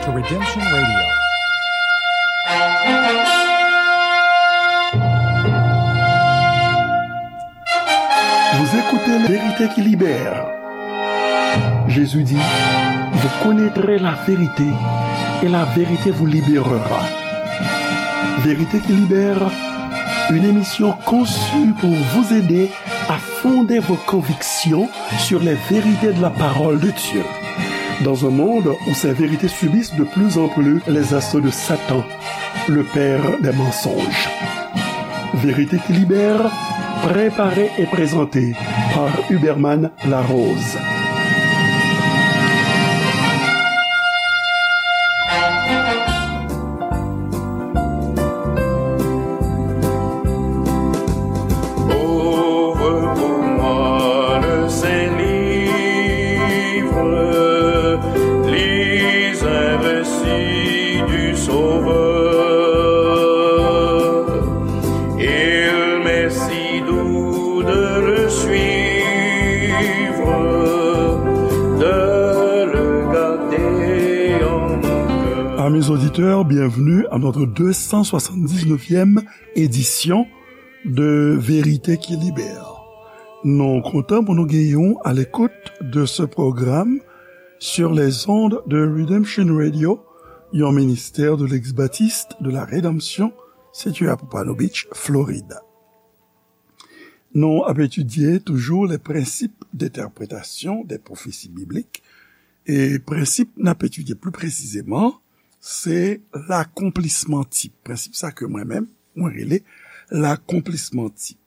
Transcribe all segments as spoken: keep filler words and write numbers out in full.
Redemption Radio. Vous écoutez Vérité qui libère. Jésus dit, vous connaîtrez la vérité et la vérité vous libérera. Vérité qui libère, une émission conçue pour vous aider à fonder vos convictions sur les vérités de la parole de Dieu. Dans un monde où ces vérités subissent de plus en plus les assauts de Satan, le père des mensonges. Vérité qui libère, préparée et présentée par Huberman Larose. Ouvre pour moi le Saint-Livre, lis un récit du Sauveur. Il m'est si doux de le suivre, de le garder en mon cœur. Amis auditeurs, bienvenue à notre deux cent soixante-dix-neuvième édition de Vérité qui Libère. Nou kontan pou nou genyen w à l'écoute de ce programme sur les ondes de Redemption Radio, yon ministère de l'ex-baptiste de la Rédemption, situé à Pompano Beach, Florida. Nou ap etidye toujou les principes d'interprétation des prophéties bibliques. E prensip n ap etidye pli presizeman, se lakonplisman tip. Prensip sa ke mwen menm, mwen rele lakonplisman tip.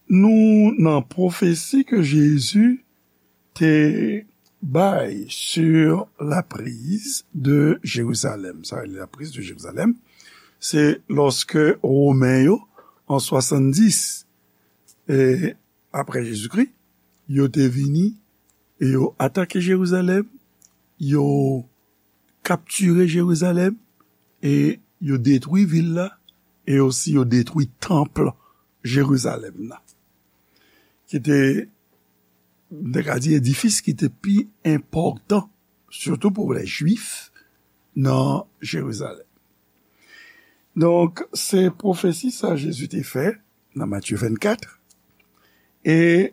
Nou nan pwofesi ke Jezi te bay sur la prise de Jérusalem. Sa rele la prise de Jérusalem, se lòske Women yo, an swasanndis, e, apre Jezikri, yo te vini e yo atake Jerizalèm, yo kaptire Jerizalèm, e yo detwi vil la, e osi yo detwi tanp Jerizalèm nan, ki te, m te ka di, edifis ki te pi enpòtan, sitou pou lè Jwif nan Jerizalèm. Donk, se pwofesi sa Jezi te fè nan Matye vennkat, e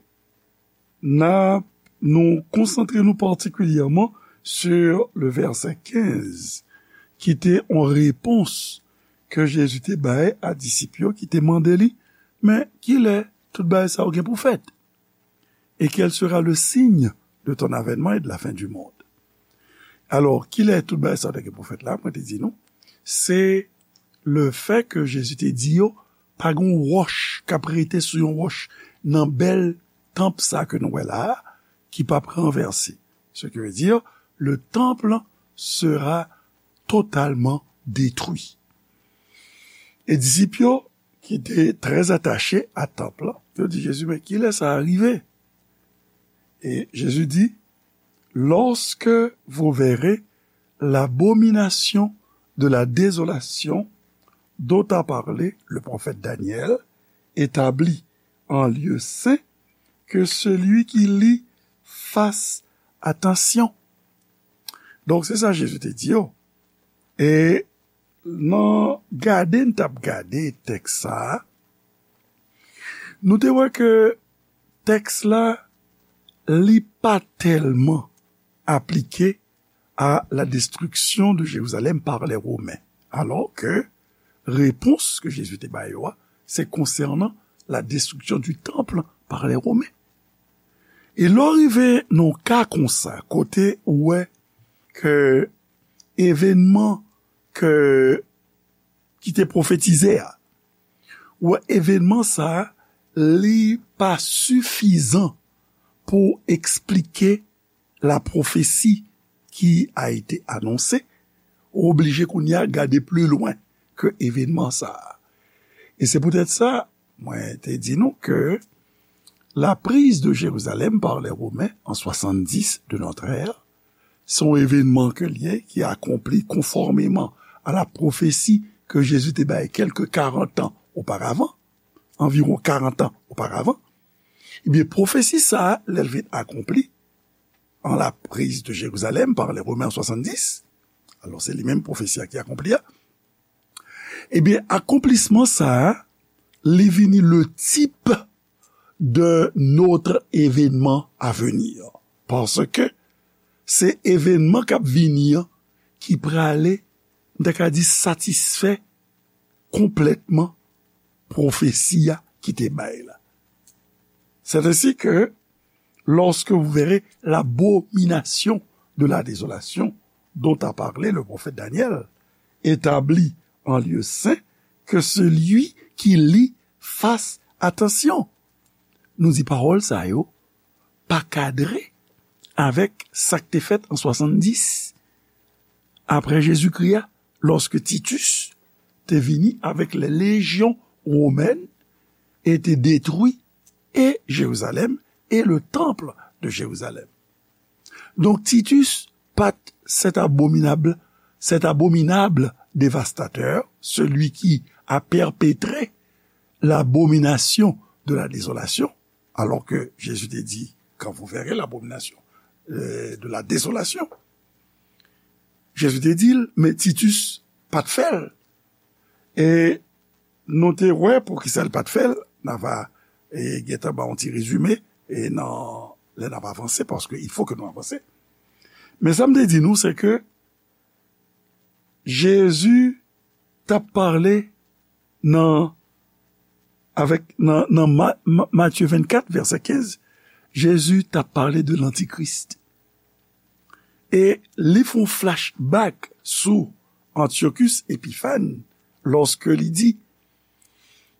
n a, nou konsantre nou patikilyèman sur le verset quinze, ki te yon repons ke Jezi te bay a disip yo ki te mande li, men kilè tout bagay sa yo gen pou fèt? Et quel sera le signe de ton avènement et de la fin du monde? Alò, kilè tout bagay sa yo te gen pou fèt la? Mwen te di nou, se lefèt ke Jezi te di yo, pa gen yon wòch k ap rete sou yon wòch nan bèl tanp sa ke nou wè la a, ki p ap ranvèse. Ce qui veut dire, le temple sera totalement détruit. E disip yo, ki te trè atache a tanp lan, yo di Jezi, men kilè sa a rive? E Jezi di, lorsque vous verrez l'abomination de la désolation dont a parlé le prophète Daniel établie en lieu saint, que celui qui lit fasse attention. Donk, se sa Jezi te di yo. E nan gade n t ap gade tèks sa a, nou te wè ke tèks la, li pa tèlman aplike à la destruction de Jérusalem par les Romains. Alors que repons ke Jezi te ba yo a, se konsènan la destruction du temple par les Romains. E lè w rive nan yon ka konsa, kote ou wè ke evènman ke, ki te pwofetize a, ou wè evènman sa a, li pa sifizan pou eksplike la prophétie qui a été annoncée, ou oblije kounye a gade pli lwen ke evènman sa a. E se poutèt sa, mwen te di nou ke la prise de Jérusalem par les Romains en soixante-dix de notre ère, se yon evènman ke l ye ki akonpli konfòmeman a la pwofesi ke Jezi te bay kèlke karant an oparavan, anviwon karant an oparavan. Ebyen, pwofesi sa a, lè l vin akonpli, en la prise de Jérusalem par les Romains en soixante-dix, Alò, se li menm pwofesi a ki akonpli a. Ebyen, akonplisman sa a, li vini le type de notre événement à venir. Paske se evènman k ap vini an ki prale, m ta ka di, satisfè konplètman pwofesi a ki te bay la. C'est ainsi que, lorsque vous verrez l'abomination de la désolation dont a parlé le prophète Daniel, établie en lieu saint, que celui qui lit fasse attention. Nou di pawòl sa yo pa kadre avèk sa k te fèt an swasanndis apre Jezikri a, lòske Titus te vini avèk les légions romaines et te détruit et Jérusalem et le temple de Jérusalem. Donk, Titus pa t cet abominable, cet abominable dévastateur, celui qui a perpétré l'abomination de la désolation, alors que Jésus te dit, quand vous verrez l'abomination, euh, de la désolation. Jezi te di l, men Titus pa t fè l. E nou te wè poukisa l pa t fè l. N a va, e, gentan ba yon ti rezime, e nan, lè n ap avanse, paske il faut que nou avanse. Men sa m te di nou, se ke Jezi t ap pale nan, avèk, nan, nan Ma-, Ma-, Matye vennkat, vèsè kenz, Jezi t ap pale de lantikris. E li fè yon flashback sou Antiochus Epiphan lòske li di,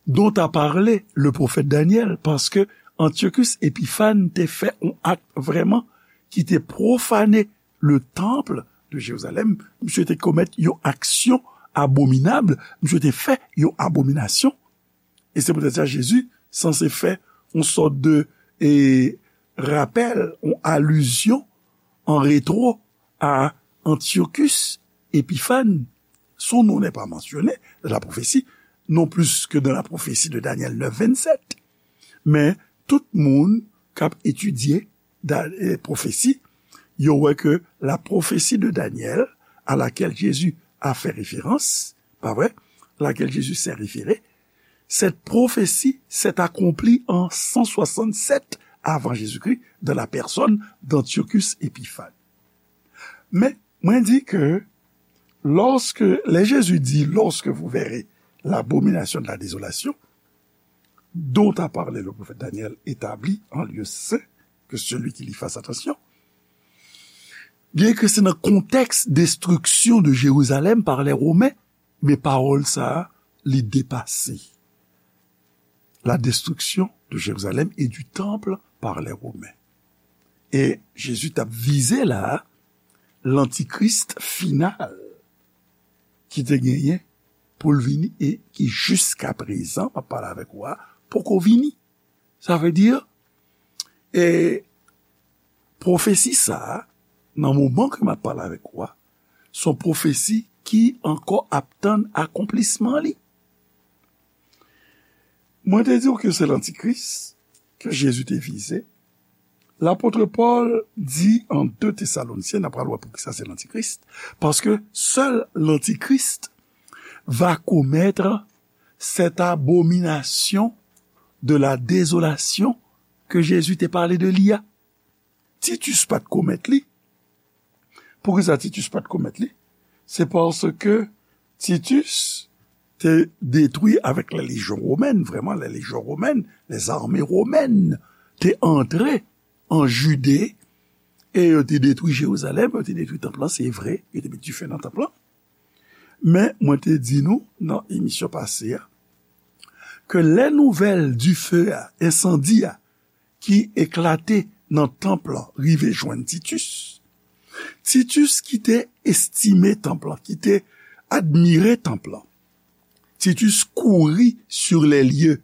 dont a parlé le prophète Daniel, paske Antiochus Epiphan te fè yon ak vrèman ki te pwofane le temple de Jérusalem. Misye te komèt yon aksyon abominab, misye te fè yon abominasyon. E se poutèt sa Jezi sanse fè yon sòt de, e, rapèl, yon alizyon an retwo a Antiochus Epiphan. Son nom n'est pas mentionné dans la prophétie, non plus que dans la prophétie de Daniel neuf vingt-sept. Men tout moun k ap etidye Da-, eh, pwofesi, yo wè ke la prophétie de Daniel à laquelle Jésus a fait référence, pa vre, laquelle Jésus s'est référé, cette prophétie s'est accomplie en cent soixante-sept avant Jésus-Christ dans la personne d'Antiochus Épiphan. Men, mwen di ke lòske, lè Jezi di, lorsque vous verrez l'abomination de la désolation, dont a parlé le prophète Daniel établie en lieu saint, que celui qui lit fasse attention. Byen ke se nan kontèks destriksyon de Jerizalèm pa lè Women, men pawòl sa a, li depase. La destruction de Jérusalem et du temple par les Romains. E Jezi t ap vize la a, lantikris final ki te genyen pou l vini e ki jiska prezan, m ap pale avèk ou a, poko vini. Sa vle di, e, pwofesi sa a, nan moman ke m ap pale avèk ou a, se yon pwofesi ki ankò ap tann akonplisman li. Mwen te di w ke se lantikris ke Jezi te vize. Lapot Pòl di an de Tesalonisyen, n ap pral wè poukisa se lantikris, paske sèl lantikris va commettre cette abomination de la désolation ke Jezi te pale de li a. Titus pa t komèt li. Poukisa Titus pa t komèt li? Se paske Titus te detwi avèk la lejyon womèn, vrèman, la lejyon womèn, les armées romaines, te antre an Jide e yo te detwi Jerizalèm, yo te detwi tanp lan, se vre, yo te met dife nan tanp lan. Men, mwen te di nou nan emisyon pase a, ke lè nouvèl dife a, ensandi a, ki eklate nan tanp lan rive jwenn Titus. Titus ki te estime tanp lan, ki te admire tanp lan. Titus kouri sur les lieux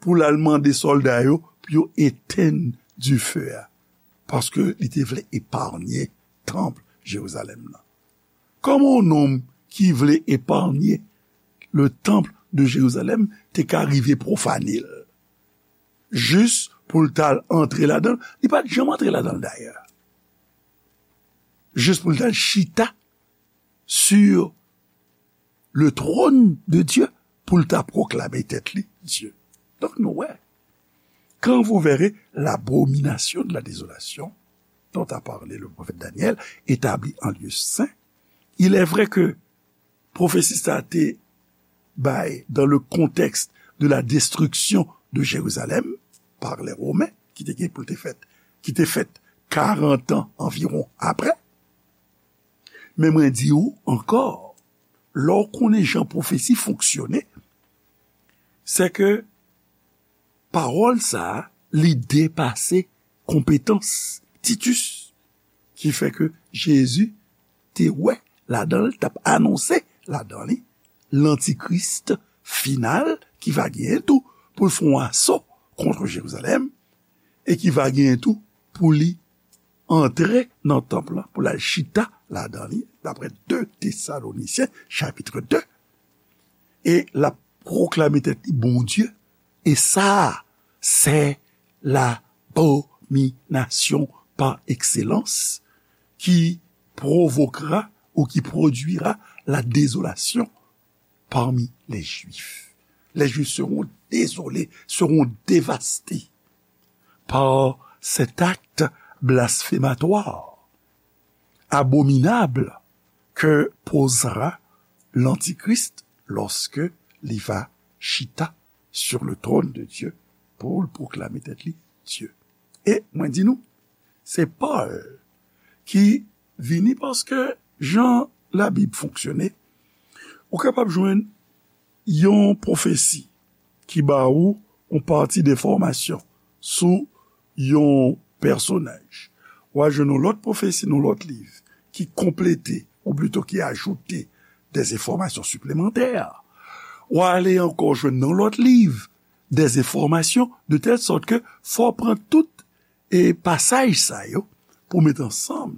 pou l al mande sòlda yo pou yo etenn dife a, paske li te vle eparnye tanp Jerizalèm nan. Kòman yon nonm ki vle eparnye le temple de Jérusalem te ka rive pwofane l? Jis pou l t al antre ladan l, li pa t janm antre ladan l dayè. Jis pou l t al chita sur le trône de Dieu pou l ta pwoklame tèt li Dye. Donk nou wè, quand vous verrez l'abomination de la désolation dont a parlé le prophète Daniel établie en lieu saint, il est vrai que pwofesi sa te bay dans le contexte de la destruction de Jérusalem par les Romains, ki te gen pou l te fèt, ki te fèt karant an anviwon apre. Men mwen di ou ankò, lè w konnen jan pwofesi fonksyone, se ke pawòl sa a, li depase konpetans Titus, ki fè ke Jezi te wè ladan l, t ap anonse ladan li lantikris final ki va genyen tou pou l fè yon aso kont Jerizalèm e ki va genyen tou pou li antre nan tanp lan, pou l al chita ladan li, daprè de Tesalonisyen, chapit de, e l ap pwoklame tèt li Bondye, e sa, se labominasyon pa ekselans ki pwovokera ou ki pwodwira la désolation parmi les Juifs. Les Juifs seront désolés, seront dévastés par cet acte blasphématoire, abominable, que posera l'Antichrist lorsque li va chita sur le trône de Dieu pou l pwoklame tèt li Dye. E mwen di nou, se Pòl ki vini paske jan Labib fonksyone, ou kapab jwenn yon pwofesi ki ba ou yon pati de enfòmasyon sou yon pèsonaj. W a jwenn yon lòt pwofesi nan lòt liv ki konplete, ou plito ki ajoute des enfòmasyon siplemantè. W a ale ankò jwenn nan lòt liv des enfòmasyon de tèl sòt ke fò w pran tout e pasaj sa yo pou w met ansanm,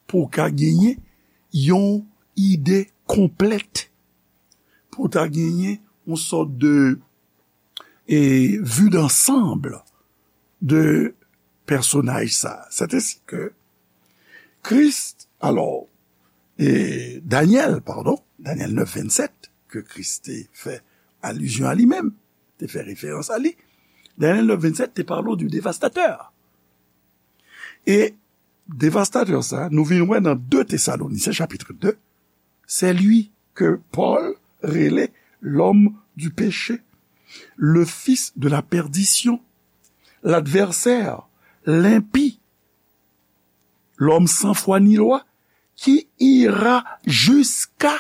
pou w ka genyen yon ide konplèt, pou w ta genyen yon sòt de e, vue d'ensemble de pèsonaj sa. Sètensi ke Kris, alò, e, Danyèl, padon, Danyèl nèf vennsèt, ke Kris te fè alizyon a li menm, te fè referans a li. Danyèl nèf vennsèt te pale w du dévastateur. E dévastateur sa, nou vin wè nan de Tesalonisyen, chapit de, c'est lui que Paul rele l'homme du péché, le fils de la perdition, l'adversaire, l'impie, l'homme sans foi ni loi, qui ira jusqu'à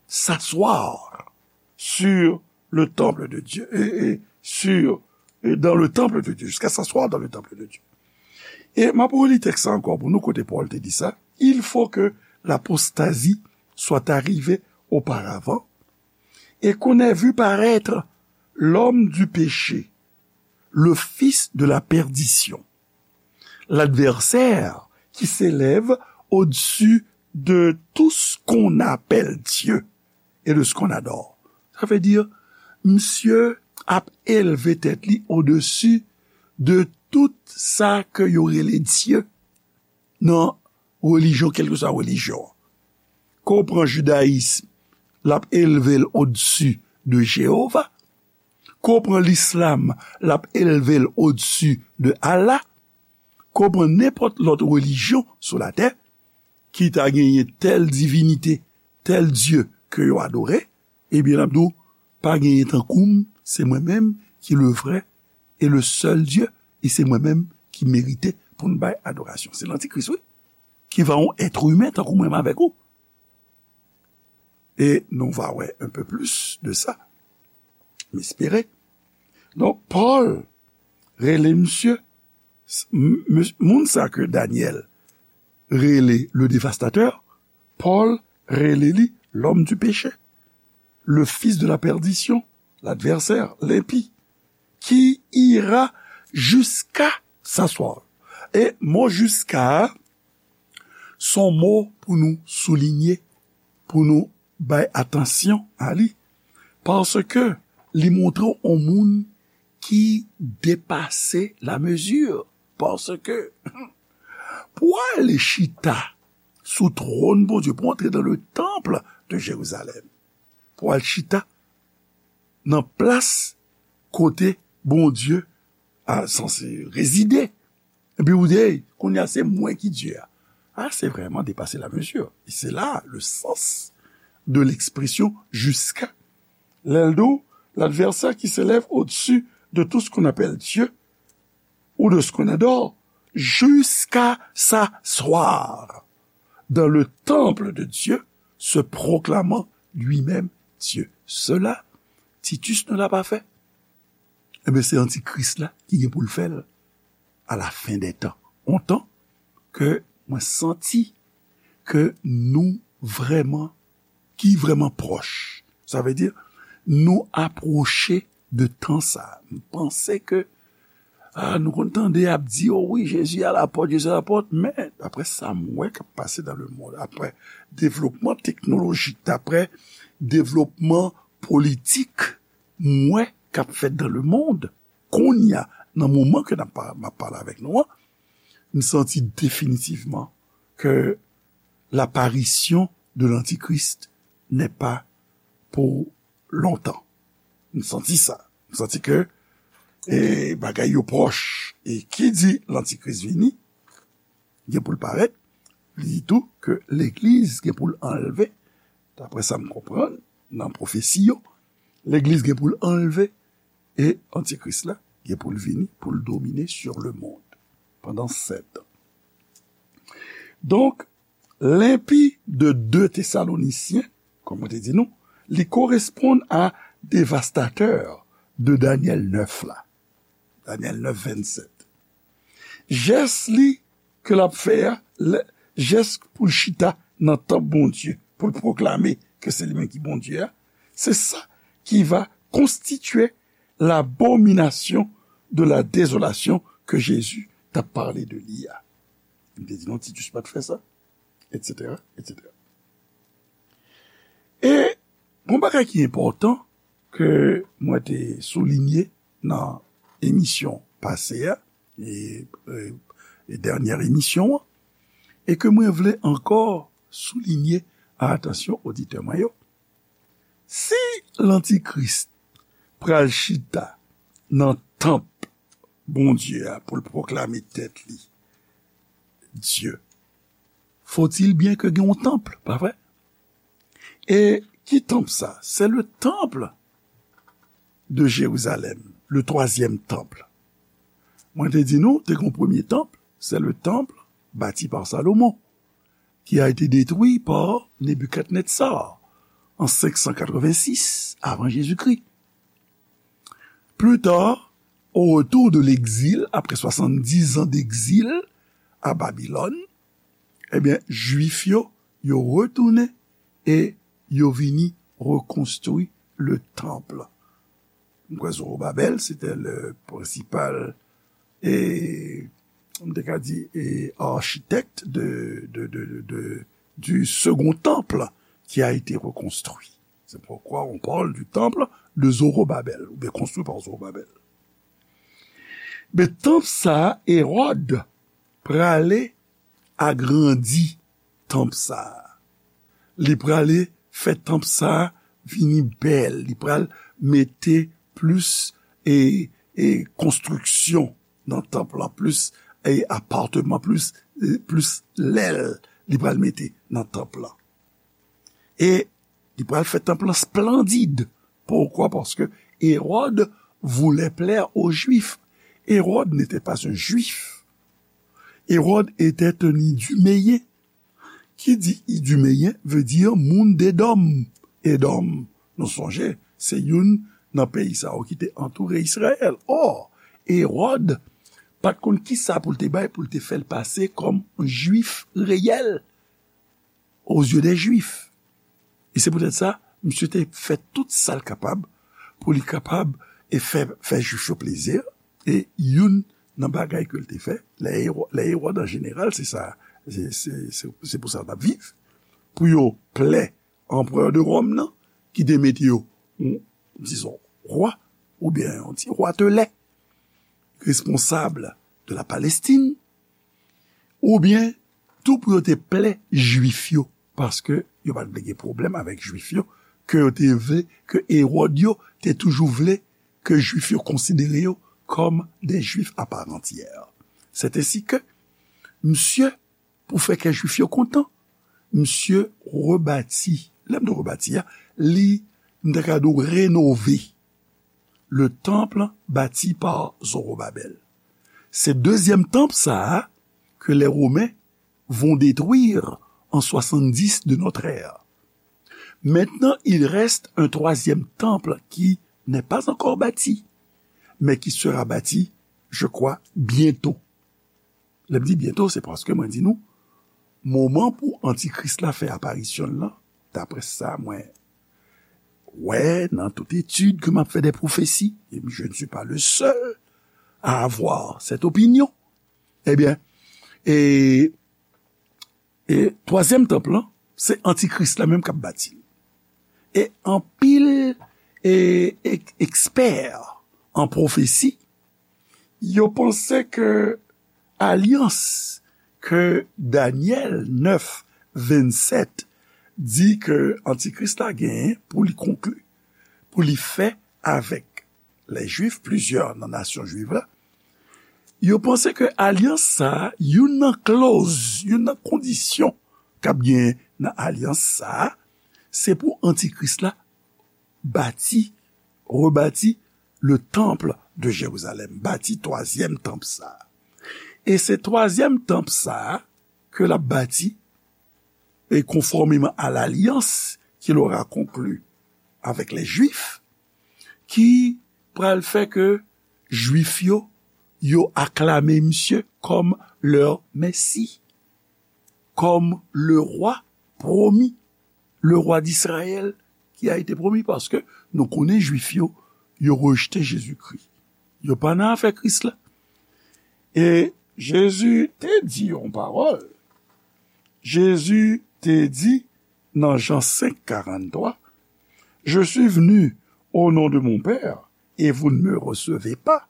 s'asseoir sur le temple de Dieu, et, et sur, et dans le temple de Dieu, jusqu'à s'asseoir dans le temple de Dieu. E m ap reli tèks sa ankò pou nou, kote Pòl te di sa, il faut que l'apostasie soit arrivée auparavant, et qu'on ait vu paraître l'homme du péché, le fils de la perdition, l'adversaire qui s'élève au-dessus de tout ce qu'on appelle Dieu et de ce qu'on adore. Sa vle di, misye ap elve tèt li odesi de tout sa ke yo rele Dye nan relijyon, kèlkeswa relijyon an. Ke w pran jidayis, l ap elve l odesi de Jewova. Ke w pran lislam, l ap elve l odesi de Allah. Ke w pran nenpòt lòt relijyon sou latè, ki ta genyen tèl divinite, tèl dye ke yo adore, ebyen, l ap di w, pa genyen tankou m, se mwen menm ki le vrai et le seul Dieu, e se mwen menm ki merite pou n bay adorasyon. Se lantikris, wi, ki va yon èt imen tankou mwen menm avèk ou. E nou va wè un peu plus de ça, m espere. Donk, Pòl rele misye, s-, m-, m-, moun sa ke Danyèl rele le dévastateur, Pòl rele li l'homme du péché, le fils de la perdition, l'adversaire, l'impie, qui ira jusqu'à s'asseoir. E mo jusqu'à a, se yon mo pou nou soulinye, pou nou bay atansyon a li, paske li montre w yon moun ki depase la mezi, paske pou w ale chita sou twòn Bondye, pou antre dans le temple de Jérusalem, pou al chita nan plas kote Bondye a sanse rezide. Epi ou di, "Hey, kounye a se mwen ki Dye a." Ah, c'est vraiment dépasser la mesure. Et c'est là le sens de l'expression jusqu'à. Lè l di w, l'adversaire qui s'élève au-dessus de tout ce qu'on appelle Dieu ou de ce qu'on adore, jusqu'à s'asseoir dans le temple de Dieu, se proclamant lui-même Dieu. Cela, Titus ne l'a pas fait. Ebyen, se antikris la ki gen pou l fè l à la fin des temps. On tan ke mwen santi ke nou vrèman, ki vrèman pwòch. Sa vle di, nou apwoche de tan sa. M panse ke, ah, nou konn tande ap di, "Oh wi, Jezi à la porte, Jezi à la porte," men, daprè sa m wè k ap pase dans le monde, daprè devlopman teknolojik, daprè devlopman politik, m wè k ap fèt dans le monde, kounye a, nan moman ke n ap pa-, m ap pale avèk nou an, m santi definitivman ke l'apparition de l'Antichrist n'est pas pour longtemps. M santi sa. M santi ke, e, bagay yo pwòch. E ki di l'Antichrist vini, gen pou l parèt, li di tou ke legliz gen pou l anlve, daprè sa m konprann, nan pwofesi yo, legliz gen pou l anlve, e antikris la gen pou l vini, pou l domine sur le monde pandan sèt an. Donk, lenpi de de Tesalonisyen, kòm mwen te di nou, li koresponn a devastatè de Danyèl nèf la. Danyèl nèf, vennsèt. Jès li ke l ap fè a, lè, jès pou l chita nan tanp Bondye, pou l pwoklame ke se li menm ki Bondye a, se sa ki va konstitye l'abomination de la désolation ke Jezi t ap pale de li a. M te di nou Titus pa t fè sa, etsetera, etsetera. E yon bagay ki enpòtan ke mwen te soulinye nan emisyon pase a, e, e, e dènyè emisyon an, e ke mwen vle ankò soulinye a atansyon oditè mwen yo. Si lantikris pral chita nan tanp Bondye a pou l pwoklame tèt li Dye, faut-il bien ke gen yon tanp, pa vre? E ki tanp sa? C'est le temple de Jérusalem, le troisième temple. Mwen te di nou, te gen yon premye tanp, c'est le temple bâti par Salomon, qui a été détruit par Nebuchadnezzar en cinq cent quatre-vingt-six avant Jésus-Christ. Plus tard, au retour de l'exil, après soixante-dix ans d'exil à Babylone, ebyen, Jwif yo, yo retounen e yo vini rekonstwi le tanp. M kwè Zorobabèl, se te le prensipal, e, m te ka di, e, architecte de, de, de, de, de, du second temple qui a été reconstruit. C'est pourquoi on parle du temple de Zorobabel, oubyen construit par Zorobabel. Men tanp sa a, Ewòd prale agrandi tanp sa a. Li prale fè tanp sa a vini bèl. Li pral mete plis, e, e konstriksyon nan tanp lan, plis, e, apatman, plis, e, plis lèl li pral mete nan tanp lan. E li pral fè tanp lan splandid. Pourquoi? Parce que Hérode voulait plaire aux Juifs. Hérode n'était pas un Juif. Hérode était un Iduméen. Ki di Iduméen veut dire moun d'Edòm. Edòm, nou sonje, se youn nan peyi sa yo ki te antoure Izrayèl. Or, Ewòd pa t konn kisa pou l te bay pou l te fè l pase kòm Jwif reyèl aux yeux des Juifs. E se poutèt sa, misye te fè tout sa l kapab pou li kapab e fè, fè Jwif yo plezi. E youn nan bagay ke l te fè, lè Ewò-, lè Ewòd an jeneral, se sa, se, se, se, se pou sa n ap viv, pou yo plè anperè de Ròm nan, ki te mete yo, yon, dizon, wa, oubyen yon ti watelè, responsab de la Palestine, oubyen tou pou yo te plè Jwif yo, paske yo pa t vle gen pwoblèm avèk Jwif yo, ke yo te vle, ke Ewòd yo te toujou vle ke Jwif yo konsidere yo kòm de Jwif à part entière. C'est ainsi que, misye, pou fè kè Jwif yo kontan, misye rebati, lè m di rebati a, li, m ta ka di w renove le temple bâti par Zorobabel. Se dezyèm tanp sa a ke les Romains vont détruire en soixante-dix de notre ère. Maintenant, il reste un troisième temple qui n'est pas encore bâti, mais qui sera bâti, je crois, bientôt. Lè m di bientôt, se paske mwen di nou, moman pou Antikris la fè aparisyon l lan, daprè sa mwen wè nan tout etid ke m ap fè de pwofesi, et je ne suis pas le seul à avoir cette opinion, ebyen, e, e twazyèm tanp lan, se Antikris la menm k ap bati l. E anpil e, ek- ekspè an pwofesi, yo panse ke alyans ke Danyèl nèf vennsèt di ke Antikris la genyen pou li konkli, pou li fè avèk lè Jwif, plizyè nan nasyon jwiv la, yo panse ke alyans sa a, youn nan klòz, youn nan kondisyon k ap genyen nan alyans sa a, se pou Antikris la bati, rebati le temple de Jérusalem, bati twazyèm tanp sa a. E se twazyèm tanp sa a ke l ap bati, et conformément à l'alliance qu'il aura conclue avec les Juifs, ki pral fè ke Jwif yo, yo aklame misye kòm leur Messie, comme le roi promis, le roi d'Israël qui a été promis, paske nou konnen Jwif yo, yo rejte Jezikri. Yo pa nan afè Kris la. E Jezi te di yon pawòl. Jezi te di nan Jan senk karannntwa, je suis venu au nom de mon Père et vous ne me recevez pas.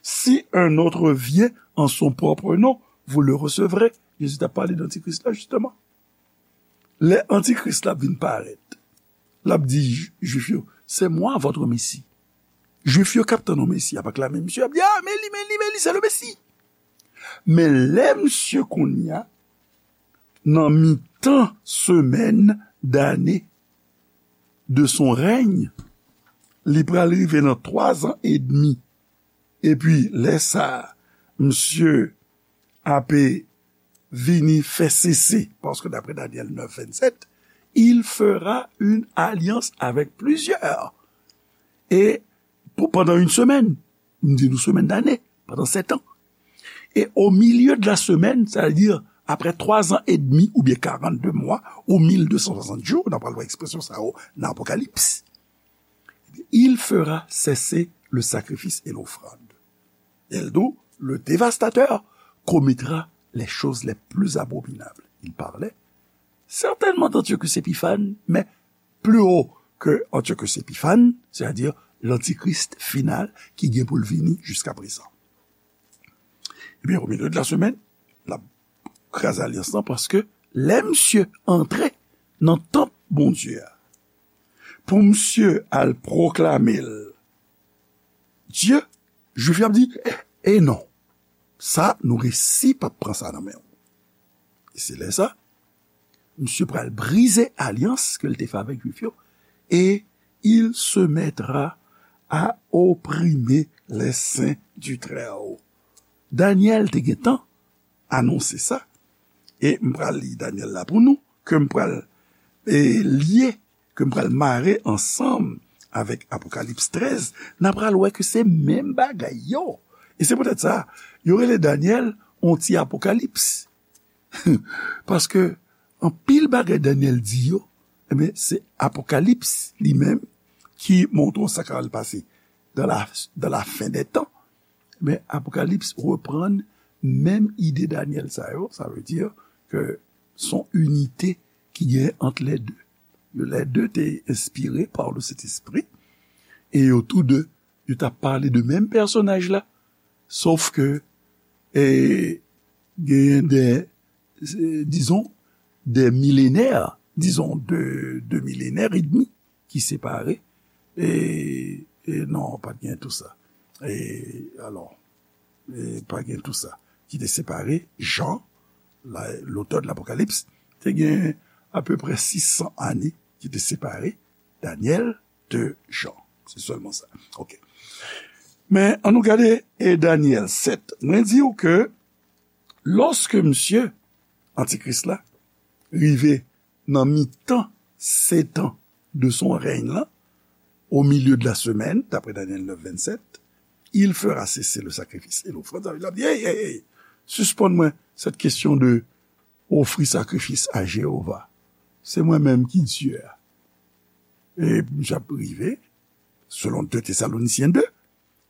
Si un autre vient en son propre nom, vous le recevrez. Jezi t ap pale d Antikris la, jisteman. Lè Antikris la vin parèt, l ap di Jwif yo, c'est moi votre Messie. Jwif yo k ap tann yon Mesi, y ap aklame misye, y ap di, ah, men li, men li, men li, c'est le Messie. Men lè misye kounye a, nan mitan semèn dane de son règne, li pral rive nan twa zan edmi. Epi, lè sa a, misye ape vini fè sese, paske daprè Danyèl nèf vennsèt, il fera une alliance avec plusieurs. E pou pandan yon semèn, m di nou semèn dane, pandan sèt an. E au milieu de la semaine, c'est-à-dire après trois ans et demi ou bien quarante-deux mois ou mille deux cent soixante jours, n ap pral wè ekspresyon sa yo nan Apokalips, il fera cesser le sacrifice et l'offrande. Et le, le dévastateur commettra les choses les plus abominables. Il parlait certainement d'Antiochus Épiphanes, mais plus haut que Antiochus Épiphanes, c'est-à-dire l'antichrist final ki gen pou l vini jiska prezan. Ebyen, au milieu de la semaine, l ap kraze alyans lan, paske lè misye antre nan tanp Bondye a, pou misye al pwoklame l Dye, Jwif yo ap di, e non, sa, nou resi p ap pran sa nan men w. E se lè sa, misye pral brize alyans ke l te fè avèk Jwif yo, et il se mettra à opprimer les saints du Très-Haut. Danyèl te gentan anonse sa, e m pral li Danyèl la pou nou, ke m pral, e, lye, ke m pral mare ansanm avèk Apokalips trèz, n a pral wè ke se menm bagay yo. E se poutèt sa, yo rele Danyèl yon ti Apokalips. Paske anpil bagay Danyèl di yo, ebyen, se Apokalips li menm ki montre w sa k pral pase dans la, dans la fin des temps. Men Apokalips reprann menm ide Danyèl sa yo, sa vle di ke s on inite ki gen ant lè de. Lè de te enspire pa le Sentespri, e yo tou de, yo t ap pale de menm pèsonaj la, sof ke, e, genyen de euh, disons, des millénaires, disons, de, de millénaires et demi qui séparent. Et, et non, pas bien tout ça. Et alors, e pa gen tou sa, ki te separe Jan, la, lotè de Lapokalips, te gen apeprè sis san ane ki te separe Danyèl de Jan. Se sèlman sa. Ok. Men, ann nou gade e Danyèl sèt. Mwen di w ke lòske misye, Antikris la, rive nan mitan setan de son règne là, au milieu de la semaine, d'après Daniel neuf, vingt-sept, il fera cesser le sacrifice et l'offrande. Sa vle di, l ap di, hey, hey, hey, sispann mwen cette question de ofri sakrifis a Jewova. Se mwen menm ki Dye a. E misye ap rive, selon deux Thessaloniciens deux,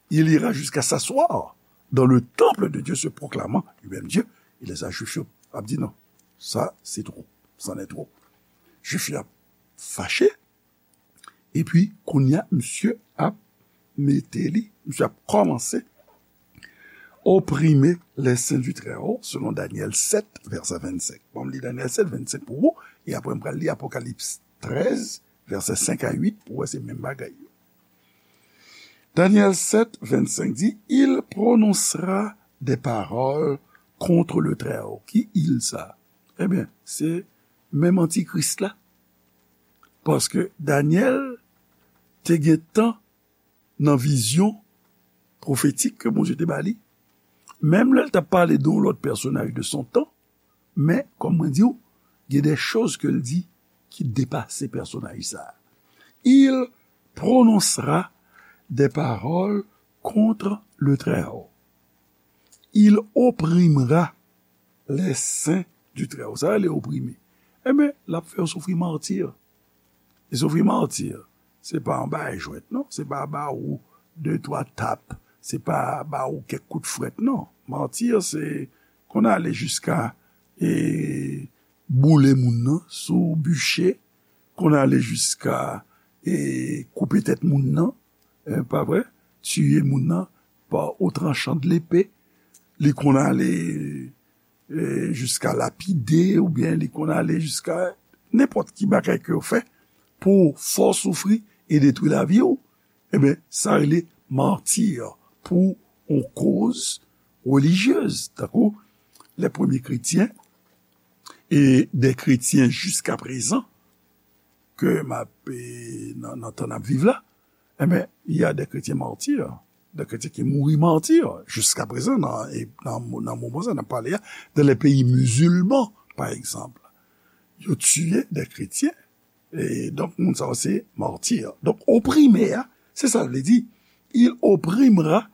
il ira jusqu'à s'asseoir dans le temple de Dieu, se proclamant lui-même Dieu. E lè sa, Jwif yo ap di non, sa se twòp, c'en est trop. Jwif yo ap fache, epi kounye a, misye ap mete li, misye ap kòmanse oprime les saints du Très-Haut, selon Daniel sept, verset vingt-cinq. Bon, m li Daniel sept, vingt-cinq pou ou, e apre m pral li Apokalips trèz, verset cinq à huit, pou wè se menm bagay yo. Daniel sept, vingt-cinq di, il prononcera des paroles contre le Très-Haut. Ki il sa? Ebyen, se menm Antikris la. Paske Daniel te gen tan nan vizyon pwofetik ke Bondye te ba li. Menm lè l t ap pale de yon lòt pèsonaj de son tan, men, kòm mwen di w, gen de choz ke l di ki depase pèsonaj sa a. Il prononcera des paroles contre le Très-Haut. Il opprimera les saints du Très-Haut. Sa rele oprime. Ebyen, l ap fè yo soufri mati. E soufri mati, se pa anba jwèt, non. Se pa ba ou de twa tap. Se pa ba ou kèk kout frèt, non. Mati, se konn ale jiska e boule moun nan sou biche, konn ale jiska e koupe tèt moun nan, e, pa vre? Tiye moun nan pa o tranchan de lepe. Li konn ale e, jiska lapide, oubyen li konn ale jiska nenpòt ki bagay ke yo fè pou fè w soufri e detwi lavi w, ebyen, sa rele mati pou yon koz relijyez. Tankou les premiers chrétiens et des chrétiens jusqu'à présent ke m ap, e, nan, nan tan n ap viv la, ebyen, il y a des chrétiens martyrs, des chrétiens ki mouri mati, jiska prezan, nan, e, nan, nan moman sa n ap pale a, dans les pays musulmans, par exemple. Yo tiye des chrétiens, e donk, moun sa yo se mati. Donk, oprime a, se sa l vle di, il opprimera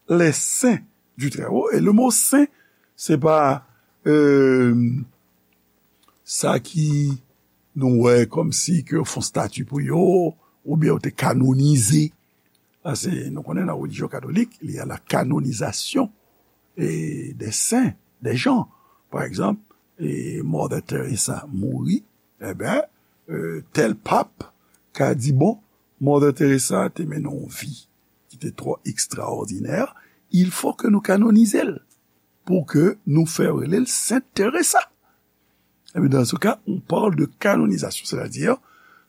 les saints du Très-Haut. E le mo sen, se pa, e, sa ki nou wè kòmsi ke yo fè yon stati pou yo, oubyen yo te kanonize. Paske nou konnen nan relijyon katolik, il y a la canonisation e, des saints, des gens. Pa egzanp, e, Mother Teresa mouri, ebyen, e, tèl pap ka di, bon, Mother Teresa te mennen yon vi ki te twò ekstraòdinè, il faut que nou kanonize l pou ke nou fè rele l Sent Teresa. Ebyen, dans ce cas, on parle de canonisation, c'est-à-dire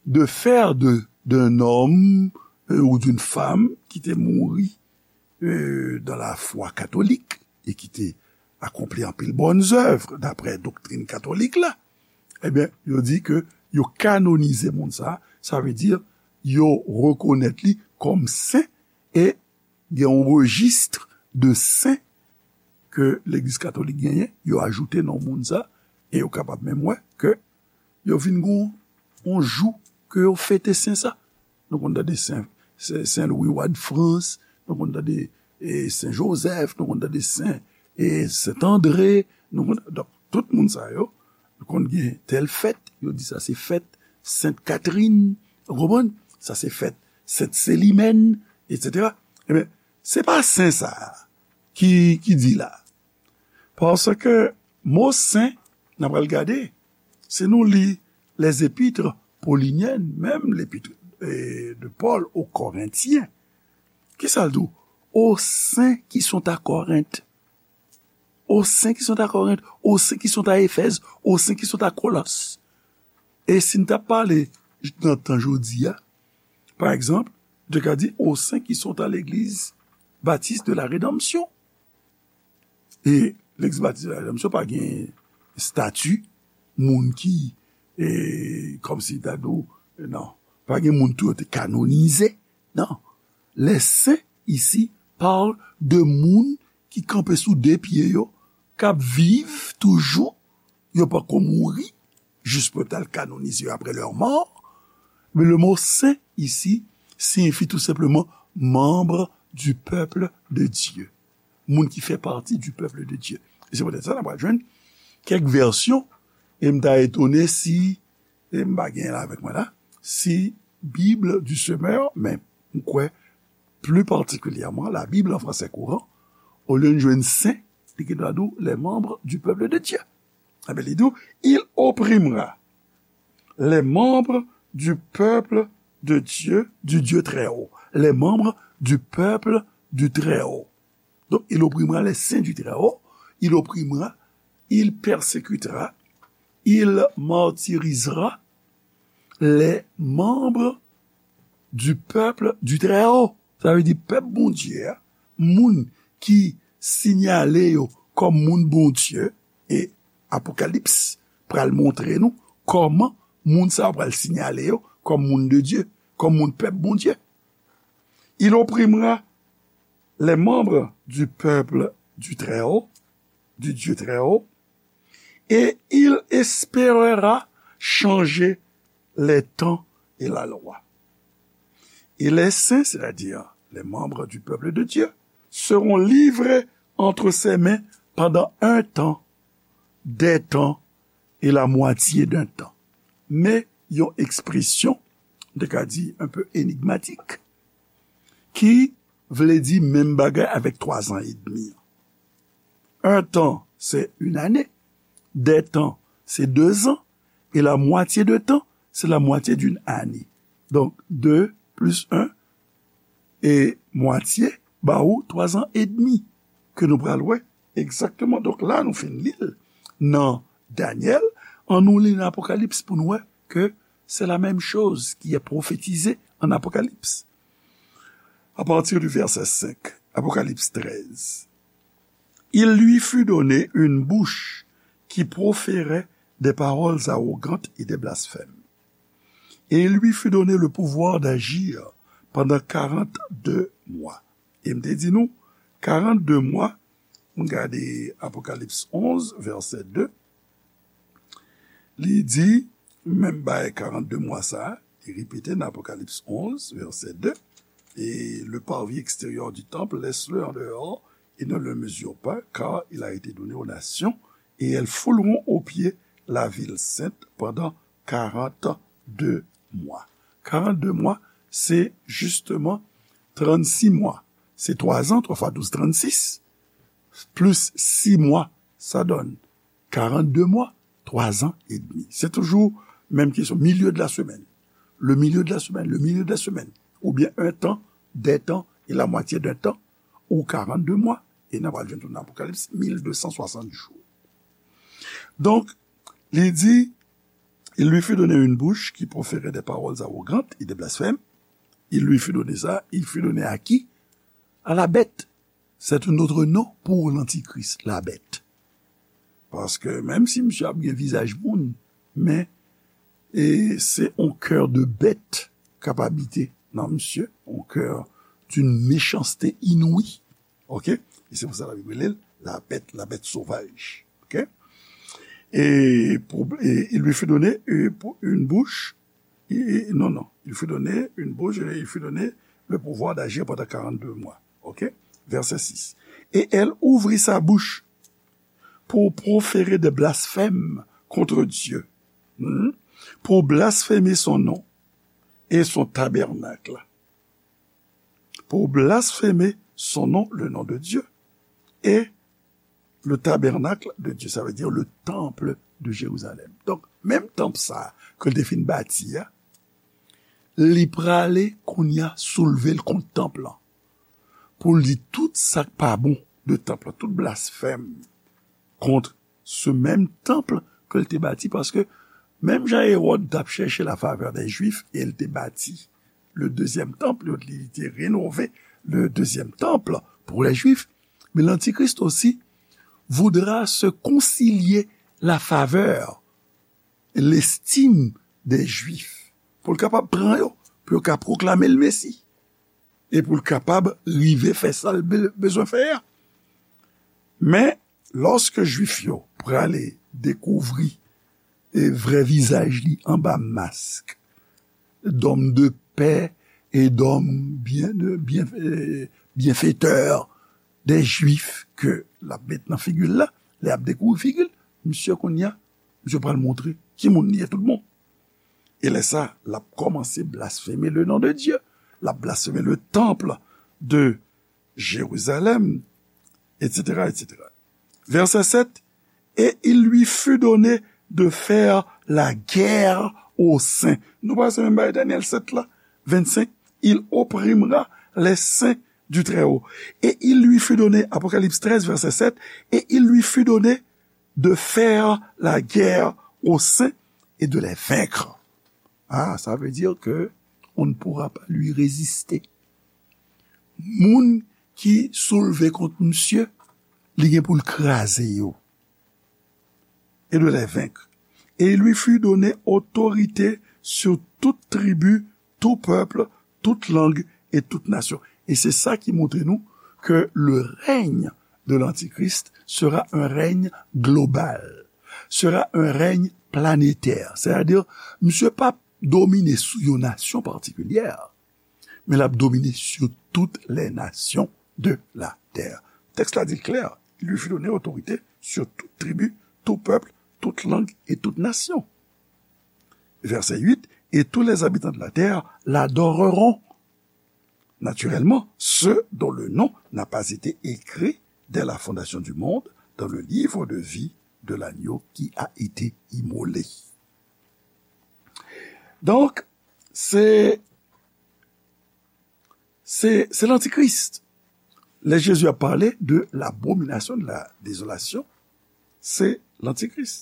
de faire de, d'un homme, euh, ou d'une femme ki te mouri, euh, dans la foi catholique et ki te akonpli anpil bonnes œuvres d'après doktrin katolik la. Ebyen, yo di ke yo kanonize moun sa, sa vle di yo rekonèt li kòm sen e gen yon rejis de sen ke Legliz Katolik genyen, yo ajoute non moun sa, e yo kapab menm wè ke yo vin gon yon jou ke yo fete sen sa. Nou konn tande Sen, Sen, Sen Lwi, wa de Frans, nou konn tande, e, Sen Jozèf, nou konn tande Sen, e, Sent Andre, nou konn, donk, tout moun sa yo, nou konn gen tèl fèt, yo di sa se fèt Sent Katrin, ou konprann? Sa se fèt Sent Selimèn, etsetera. Ebyen, se pa sen sa a ki, ki di la. Paske mo sen, n a pral gade, si nou li les épîtres pauliniennes, menm lepit, e, de Paul aux Corinthiens, ki sa l di w? Aux saints qui sont à Corinthe. Aux saints qui sont à Corinthe, aux saints qui sont à Éphèse, aux saints qui sont à Colosses. E si n t ap pale nan tan jodi a, pa egzanp, nou te ka di aux saints qui sont à l'église baptiste de la rédemption. E Legliz Batis de la Redanmsyon pa gen estati moun ki, e, kòmsi ta di w, non, pa gen moun tou yo te kanonize, non. Les saints ici parle de moun ki kanpe sou de pye yo, k ap viv toujou, yo poko mouri, jis pou yo t al kanonize yo après leur mort. Mais le mot saint ici signifie tout simplement membre du peuple de Dieu. Moun ki fè pati du peuple de Dieu. E se poutèt sa n ap jwenn kèk vèsyon, e m ta etone si, e m pa gen l avèk mwen la, si Bible du Semeur, men m kwè pli patikilyèman la Bible en français courant, olye n jwenn saint, li gen dwa di w les membres du peuple de Dieu. Enben, li di w, il opprimera les membres du peuple de Dieu, du Dieu très haut. Les membres du peuple du très haut. Donc, il opprimera les saints du très haut, il opprimera, il persécutera, il martyrisera les membres du peuple du très haut. Sa vle di pèp Bondye a, moun ki sinyale yo kòm moun Bondye, e Apokalips pral montre nou kòman moun sa yo pral sinyale yo kòm moun de Dieu, kòm moun pèp Bondye. Il opprimera les membres du peuple du Très-Haut, du Dieu Très-Haut, et il espérera changer les temps et la loi. Et les saints, c'est-à-dire les membres du peuple de Dieu, seront livrés entre ses mains pendant un temps, des temps et la moitié d'un temps. Men yon ekspresyon, m te ka di, un peu énigmatique, ki vle di menm bagay avèk twa zan edmi an. Un temps, c'est une année. Des temps, c'est deux ans. Et la moitié de temps, c'est la moitié d'une année. Donc, deux plus un et moitié ba ou twa zan edmi ke nou pral wè egzakteman. Donk, la, nou fin li l nan Daniel, ann nou li nan Apokalips pou nou wè ke c'est la même chose qui est prophétisée en Apocalypse. À partir du verset cinq, Apocalypse treize. Il lui fut donné une bouche qui proférait des paroles arrogantes et des blasphèmes. Et il lui fut donné le pouvoir d'agir pendant quarante-deux mois. E m te di nou, quarante-deux mois, m gade Apokalips onze, vèsè de, li di, menm bagay quarante-deux mois sa, li repete nan Apokalips onze, vèsè de, et le parvis extérieur du temple, laisse-le en dehors et ne le mesure pas, car il a été donné aux nations, et elles fouleront aux pieds la ville sainte pendant quarante-deux mois. Quarante-deux mois, c'est justement trente-six mois. C'est trois ans, trois fois douze, trente-six, plus six mois, ça donne quarante-deux mois, trois ans et demi. C'est toujours même question, milieu de la semaine. Le milieu de la semaine, le milieu de la semaine. Ou bien un temps, des temps et la moitié d'un temps, ou quarante-deux mois, e n a pral jwenn tou nan Apokalips, mil de san swasant jou. Donk, li di, il lui fut donné une bouche qui proférait des paroles arrogantes et des blasphèmes. Il lui fut donné ça, il fut donné à qui? À la bête. C'est un autre nom pour l'antichrist, la bête. Paske menm si misye ap gen vizaj moun, men e se yon kè de bèt k ap abite nan misye, yon kè d'une méchanceté inouïe. Ok? E se pou sa Labib rele l la bête, la bête sauvage. Ok? Et, pour, et il lui fut donné euh, pour une bouche. Et, non, non. Il fut donné une bouche et il fut donné le pouvoir d'agir pendant quarante-deux mois. Ok? Verset six. Et elle ouvrit sa bouche pour proférer des blasphèmes contre Dieu, hmm, pour blasphémer son nom et son tabernacle, pour blasphémer son nom, le nom de Dieu, et le tabernacle de Dieu, ça veut dire le temple de Jérusalem. Donk, menm tanp sa a ke l te fin bati a, li prale kounye a soulve l kont tanp lan. Pou l di tout sa k pa bon de tanp lan, tout blasfèm, kont se menm tanp ke l te bati, paske menm jan Ewòd t ap chèche la favè dè Jwif, e l te bati le dezyèm tanp, li, li te renove le dezyèm tanp pou lè Jwif, men Lantikris osi voudra se konsilye la favè, lestim dè Jwif, pou l kapab pran yo, pou yo ka pwoklame l Mesi, e pou l kapab rive fè sa l be-, bezwen fè a. Men, lòske Jwif yo prale dekouvri e vrè vizaj li anba mask dòm de pè e dòm byen, byen, e byenfetè dè Jwif ke l ap met nan figi l la, lè y ap dekouvri figi l, misye kounye a, misye pral montre ki moun li ye tout bon. E lè sa, l ap kòmanse blasfeme le non de Dye, l ap blasfeme le tanp de Jérusalem, et cetera, et cetera. Verset sept, et il lui fut donné de faire la guerre aux saints. Nou pa se menm bagay Daniel sept la, vingt-cinq, il opprimera les saints du Très-Haut. Et il lui fut donné, Apocalypse treize, verset sept, et il lui fut donné de faire la guerre aux saints et de les vaincre. Ah, ça veut dire que on ne pourra pas lui résister. Moun ki soulve kont misye, li gen pou l kraze yo. Et de les vaincre. Et il lui fut donné autorité sur toute tribu, tout peuple, toute langue et toute nation. E se sa ki montre nou ke le règne de l'Antichrist sera un règne global, sera un règne planétaire. Sètadi, misye p ap domine sou yon nasyon patikilyè, men l ap domine sur toutes les nations de la terre. Tèks la di l klè, il lui fut donné autorité sur toute tribu, tout peuple, toute langue et toute nation. Verset huit, et tous les habitants de la terre l'adoreront. Naturellement, ceux dont le nom n'a pas été écrit dès la fondation du monde dans le livre de vie de l'agneau qui a été immolé. Donk, se, se, se lantikris. Lè Jezi ap pale de l'abomination de la désolation, se lantikris.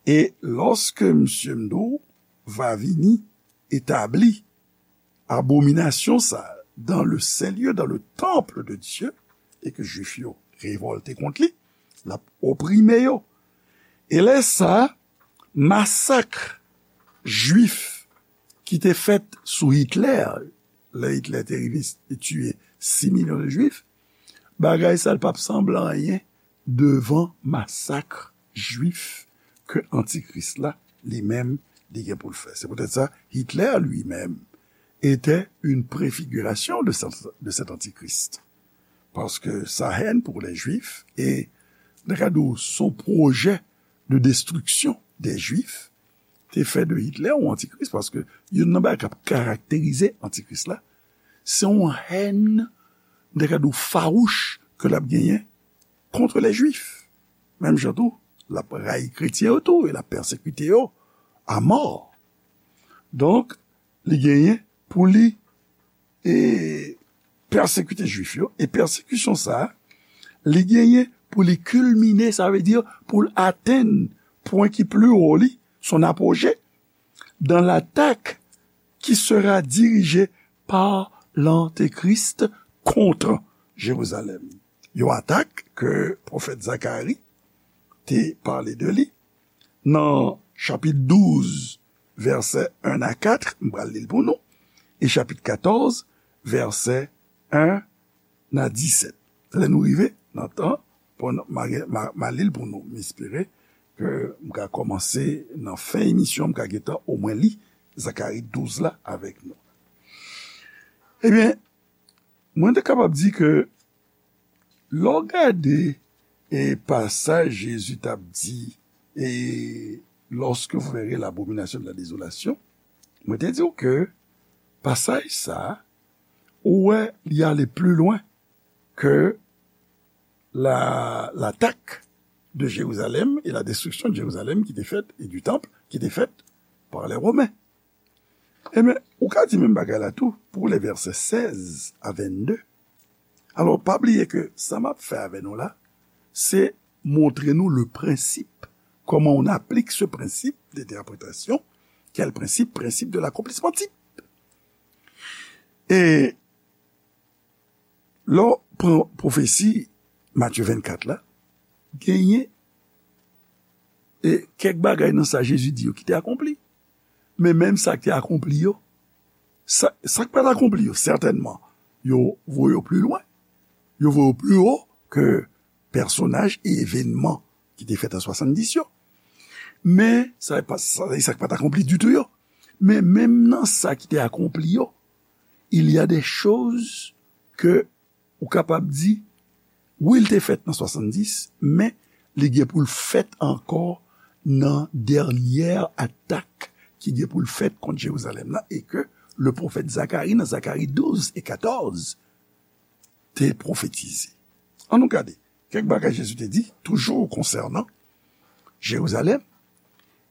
E lòske misye m di w va vini etabli abominasyon sa a dans le saint lieu, dans le temple de Dieu, e ke Jwif yo revòlte kont li, l ap oprime yo. E lè sa a, masak Jwif ki te fèt sou Hitler, lè Hitler te rive, te tiye sis milyon de Jwif, bagay sa a l p ap sanble anyen devan masak Jwif ke Antikris la, li menm, li gen pou l fè. Se poutèt sa, Hitler lui-même était une préfiguration de cet, de cet antichrist. Paske sa hèn pou lè Jwif, e nan kad ou son pwojè de destriksyon dè Jwif, te fè de Hitler yon antikris, paske youn nan bagay k ap karakterize antikris la, se yon hèn, nan kad ou fawouch ke l ap genyen kont lè Jwif. Menm jan tou, l ap rayi kretyen yo tou, e l ap pèsekite yo a mò. Donk, li genyen pou li, e, pèsekite Jwif yo, e pèsekisyon sa a, li genyen pou li kilmine, sa vle di pou l atenn pwen ki pli wo li, son apogee, dans l'attaque qui sera dirigée par l'Antéchrist contre Jérusalem. Yon atak ke pwofèt Zakari te pale de li nan chapit douz, vèsè en a kat, m pral li l pou nou, e chapit katòz, vèsè en a disèt. Lè nou rive nan tan, pou n, m a, m a, m a li l pou nou. M espere ke m ka kòmanse nan fen emisyon, m ka gentan omwen li Zakari douz la avèk nou. Ebyen, mwen te kapab di ke lè w gade, e, pasaj Jezi t ap di, e, lorsque vous verrez l'abomination de la désolation, mwen te di w ke pasaj sa a, ou wè li ale pli lwen ke la, l'attaque de Jérusalem et la destruction de Jérusalem qui était faite, et du temple qui était faite par les Romains. Ebyen, ou ka di menm bagay la tou pou lè vèsè sèz a vennde. Alò, pa bliye ke sa m ap fè avè nou la, se montre nou le principe, comment on applique ce principe d'interprétation. Quel principe? Principe de l'accomplissement type. E lè w pran pwofesi Matye vennkat la, genyen e kèk bagay nan sa Jezi di yo ki te akonpli. Men menm sa ki te akonpli yo, sa, sa k pa t akonpli yo, sètènman, yo voye yo pi lwen. Yo voye yo pi wo ke pèsonaj e evènman ki te fèt an swasanndis yo. Men, sa pa, sa, sa k pa t akonpli ditou yo. Men menm nan sa ki te akonpli yo, il y a des choses ke ou kapab di, wi, l te fèt nan swasanndis, men li gen pou l fèt ankò nan dènyè atak ki gen pou l fèt kont Jerizalèm nan, e ke le pwofèt Zakari, nan Zakari douz e katòz, te pwofetize. Ann nou gade kèk bagay Jezi te di, toujou konsènan Jerizalèm,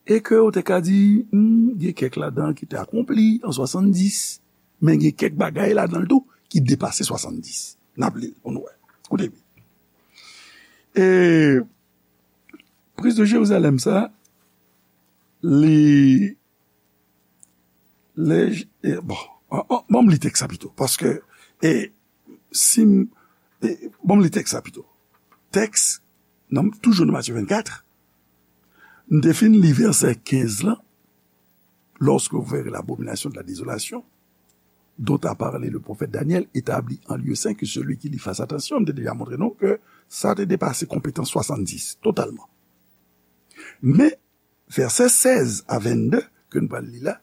e ke ou te ka di, hmm, gen kèk ladan ki te akonpli an swasanndis, men gen kèk bagay ladan l tou ki depase swasanndis. N ap li l pou nou wè. Koute byen. E priz de Jerizalèm sa, li, lè, e, bon, an, an, ban m li tèks sa pito, paske, e, si m, e, ban m li tèks sa pito. Tèks, nan, toujou nan Matye vennkat, m te fin li vèsè kenz lan, lorsque vous verrez l'abomination de la désolation, dont a parlé le prophète Daniel, établie en lieu saint, que celui qui lit fasse attention, m te deja montre nou ke sa te depase konpetans swasanndis, totalman. Men, vèsè sèz a vennde, ke nou pral li la,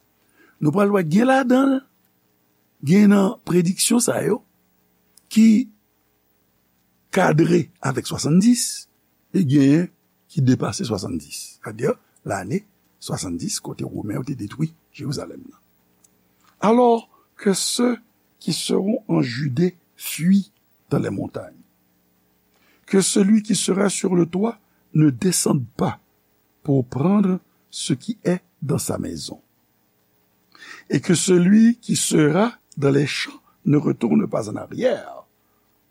nou pral wè gen ladan l, gen nan prediksyon sa yo, ki kadre avèk swasanndis, e genyen ki depase swasanndis. Sètadi, lane swasanndis, kote Women yo te detwi Jerizalèm nan. Alors que ceux qui seront en Judée fuient dans les montagnes. Que celui qui sera sur le toit ne descende pas pour prendre ce qui est dans sa maison. Et que celui qui sera dans les champs ne retourne pas en arrière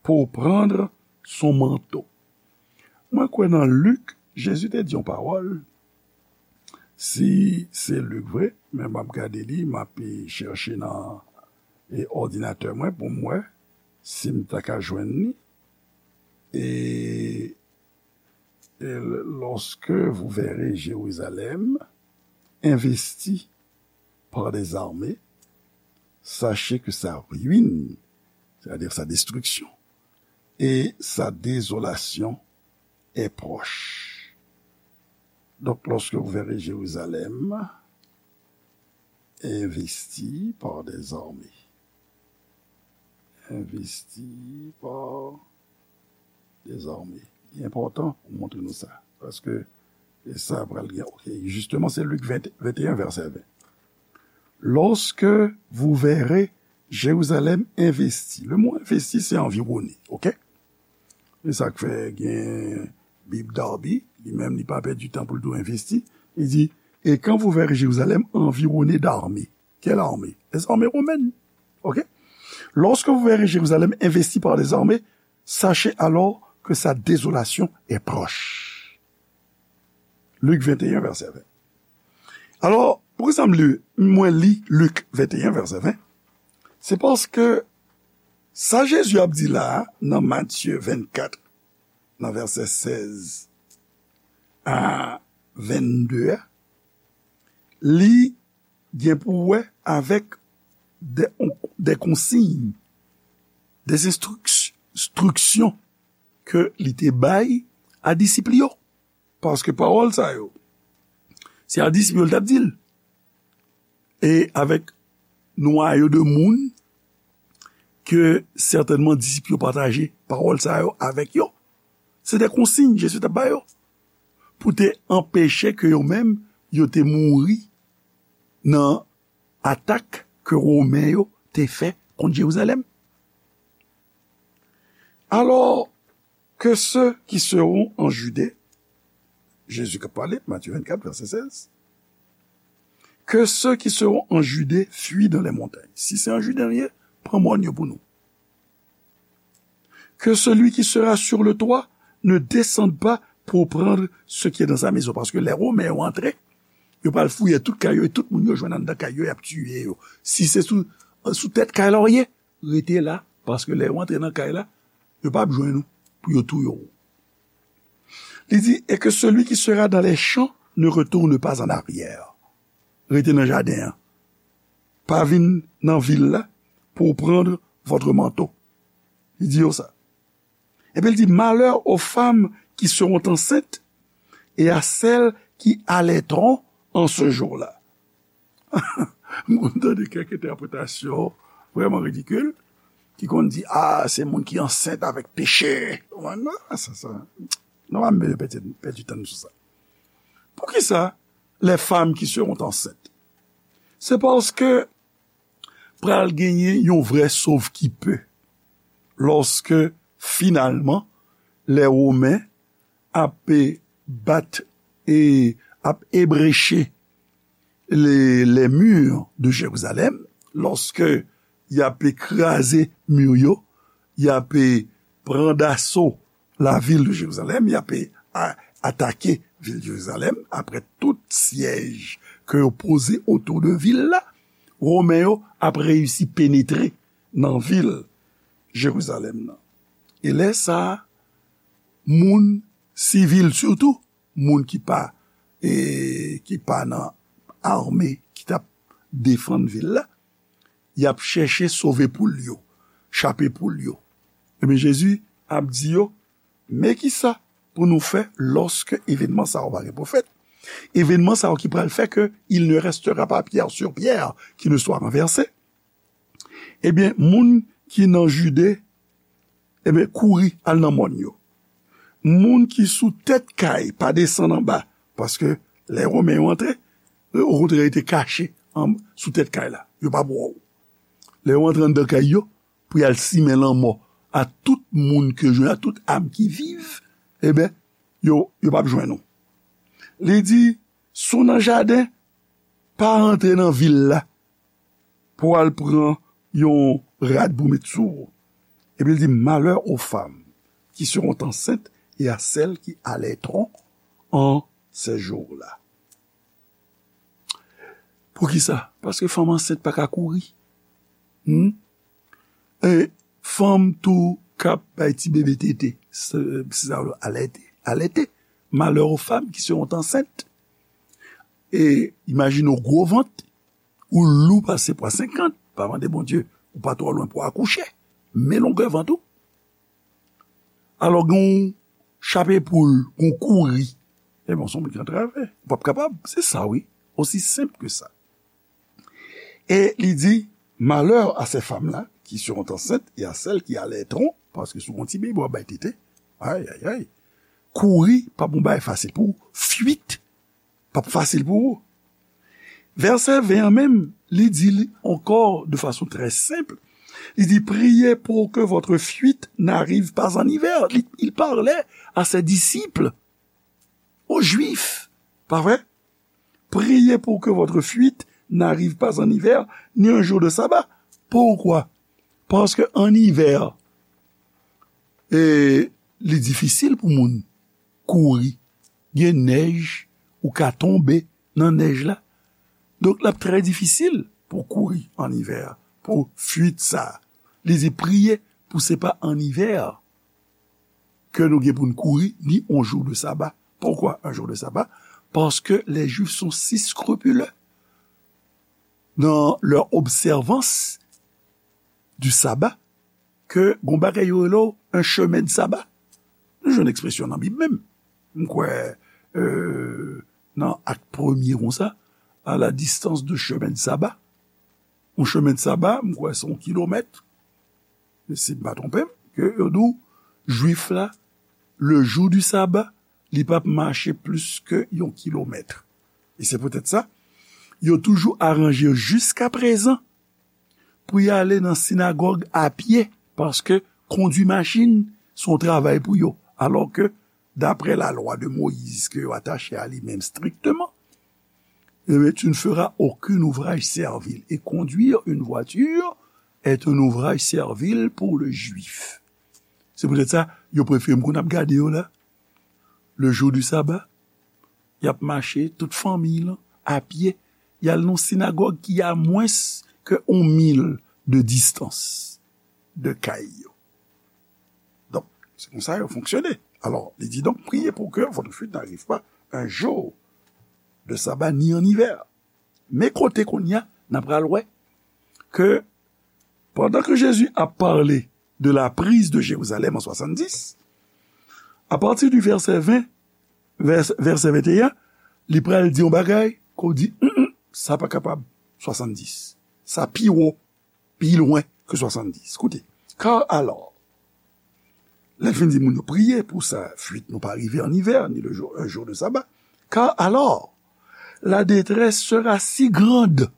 pour prendre son manteau. Mwen kwè nan Lik, Jezi te di yon pawòl. Si se Lik vre, men m ap gade li, m ap, e, chèche nan, e, òdinatè mwen pou m wè si m ta ka jwenn li. E, et lorsque vous verrez Jérusalem investi par des armées, sachez que sa ruine, c'est-à-dire sa destruction, et sa désolation est proche. Donc, lorsque vous verrez Jérusalem investi par des armées, investi par des armées. Li enpòtan pou montre nou sa. Paske, e sa pral gen, ok, jisteman, se Lik ven, venteyen, vèsè ven. Lorsque vous verrez Jérusalem investi. Le mo investi, se anviwone, ok? E sa k fè gen Bib Darby, li menm, li pa pèdi tan pou l di w envesti. Li di, et quand vous verrez Jérusalem environnée d'armées. Quelle armée? Les armées romaines. Ok? Lorsque vous verrez Jérusalem investie par des armées, sachez alors que sa désolation est proche. Lik venteyen, vèsè ven. Alò, poukisa m li, mwen li Lik venteyen, vèsè ven? Se paske sa Jezi ap di la a, nan Matye vennkat, nan vèsè sèz a vennde a, li gen pou wè avèk de, de konsiy, de enstriks, enstriksyon ke li te bay a disip li yo. Paske pawòl sa yo, se a disip yo l t ap di l. E avèk nwayo de moun ke sètènman disip yo pataje pawòl sa yo avèk yo. Se de konsiy Jezi t ap ba yo pou te anpeche ke yo menm yo te mouri nan atak ke Women yo te fè kont Jerizalèm. Alò, que ceux qui seront en Judée, Jezi k ap pale, Matye vennkat, vèsè sèz, que ceux qui seront en Judée fuient dans les montagnes. Si se an Jide nou ye, pran mòn yo pou nou. Que celui qui sera sur le toit ne descende pas pour prendre ce qui est dans sa maison. Paske lè Women yo antre, yo pral fouye tout kay yo, e tout moun yo jwenn anndan kay yo, y ap tiye yo. Si se sou, sou tèt kay la w ye, rete la, paske lè yo antre nan kay la, yo p ap jwenn ou pou yo touye w. Li di, et que celui qui sera dans les champs ne retourne pas en arrière. Rete nan jaden an. Pa vin nan vil la pour prendre votre manteau. Li di yo sa. Epi l di, malheur aux femmes qui seront enceintes et à celles qui allaiteront en ce jour-là. Mwen tande kèk entèpretasyon vrèman ridikil, ki konn di, a, se moun ki ansent avèk peche. Mwen, non, sa, sa, non, m pèdi, pèdi tan sou sa. Poukisa les femmes qui seront enceintes? Se paske pral genyen yon vrè sovkipe lòske finalman lè Women ap bat e ap ebreche les, les murs de Jérusalem, lòske y ap kraze mi yo, y ap pran daso la ville de Jérusalem, y ap a- atake vil Jerizalèm, apre tout syèj ke yo poze otou de vil la, Women yo ap reyisi penetre nan vil Jerizalèm nan. E lè sa a, moun sivil, sitou moun ki pa, e, ki pa nan ame ki t ap defann vil la, y ap chèche sove poul yo, chape poul yo. Ebyen, Jezi ap di yo, men kisa pou nou fè lòske evènman sa yo va gen pwofèt? Evènman sa yo ki pral fè ke il ne restera pas pierre sur pierre qui ne soit renversée. Ebyen, moun ki nan Jide, ebyen, kouri al nan mòn yo. Moun ki sou tèt kay, pa desann anba, paske lè Women yo antre, yo okontrè rete kache an, sou tèt kay la. Yo p ap wè w. Lè yo antre anndan kay yo, pou y al simen lanmò a tout moun ke jwenn, a tout am ki viv, ebyen, yo, yo p ap jwenn ou. Li di, si w nan jaden, pa antre nan vil la pou al pran yon rad pou met sou ou. Epi l di, malheur aux femmes qui seront enceintes et à celles qui allaiteront en ces jours-là. Poukisa? Paske fanm ansent pa ka kouri. Hmm? E fanm tou k ap bay ti bebe tete, se, se sa yo alète, alète. Malheur aux femmes qui seront enceintes. E imajine w gwo vant, ou lou pase pwa senkant, pa mande Bondye, ou pa twò lwen pou akouche. Men longè vant ou. Alò, gen yon chape poul, gen yon kouri. Ebyen, se yon moun ki antrave. Ou p ap kapab. Se sa, wi. Osi senp ke sa. E li di, malheur à ces femmes-là qui seront enceintes et à celles qui allaiteront, paske si w gon ti bebe w ap bay tete, ay, ay, ay, kouri p ap yon bagay fasil pou ou, fuite p ap fasil pou ou. Vèsè ven an menm, li di li ankò de fason trè senp. Li di, priez pour que votre fuite n'arrive pas en hiver. Li, il parlait à ses disciples, aux Juifs, pa vre? Priez pour que votre fuite n'arrive pas en hiver, ni un jour de sabbat. Pourquoi? Paske an ivè, e, li difisil pou moun kouri. Gen nèj, ou ka tonbe nan nèj la. Donk, l ap trè difisil pou kouri an ivè, pou fuit sa. Li di, priye pou se pa an ivè ke nou gen pou n kouri, ni on jou de saba. Poukwa un jour de sabbat? Parce que les Juifs sont si scrupuleux dans leur observance du sabbat ke gon bagay yo rele un chemin de sabbat. Nou jwenn ekspresyon nan Bib menm. M kwè, euh, nan Ak premye konsa, à la distance de chemin de sabbat. Un chemin de sabbat, m kwè se yon kilomèt. Si m pa twonpe m, ke yo di w, Jwif la, le jour du sabbat, li p ap mache plis ke yon kilomèt. E se poutèt sa, yo toujou aranje yo jiskaprezan pou y ale nan sinagòg a pye, paske kondui machin se yon travay pou yo, alò ke, daprè la loi de Moïse ke yo atache a li menm strikteman, eh bien, tu ne feras aucun ouvrage servile. Et conduire une voiture est un ouvrage servile pour le juif. Se poutèt sa, yo prefere m konn ap gade yo la. le jour du sabbat, y ap mache, tout fanmiy lan, a pye, y al nan yon sinagòg ki a mwens ke yon mil de distans de kay yo. Donk, se konsa yo fonksyone. Alors, li di donc, priez pour que votre fuite n'arrive pas un jour de sabbat ni en hiver. Men kote kounye a, n ap pral wè ke pandan ke Jezi ap pale de la prise de Jérusalem en soixante-dix, à partir du verset vingt, vèsè, vèsè venteyen, li pral di yon bagay ke w di, "Mm, mm, sa pa kapab swasanndis. Sa pi wo, pi lwen ke swasanndis." Koute, car alors, lè l fin di moun yo, "Priez pour sa fuite ne pas arriver en hiver, ni le jour, un jour de sabbat. Car alors, la détresse sera si grande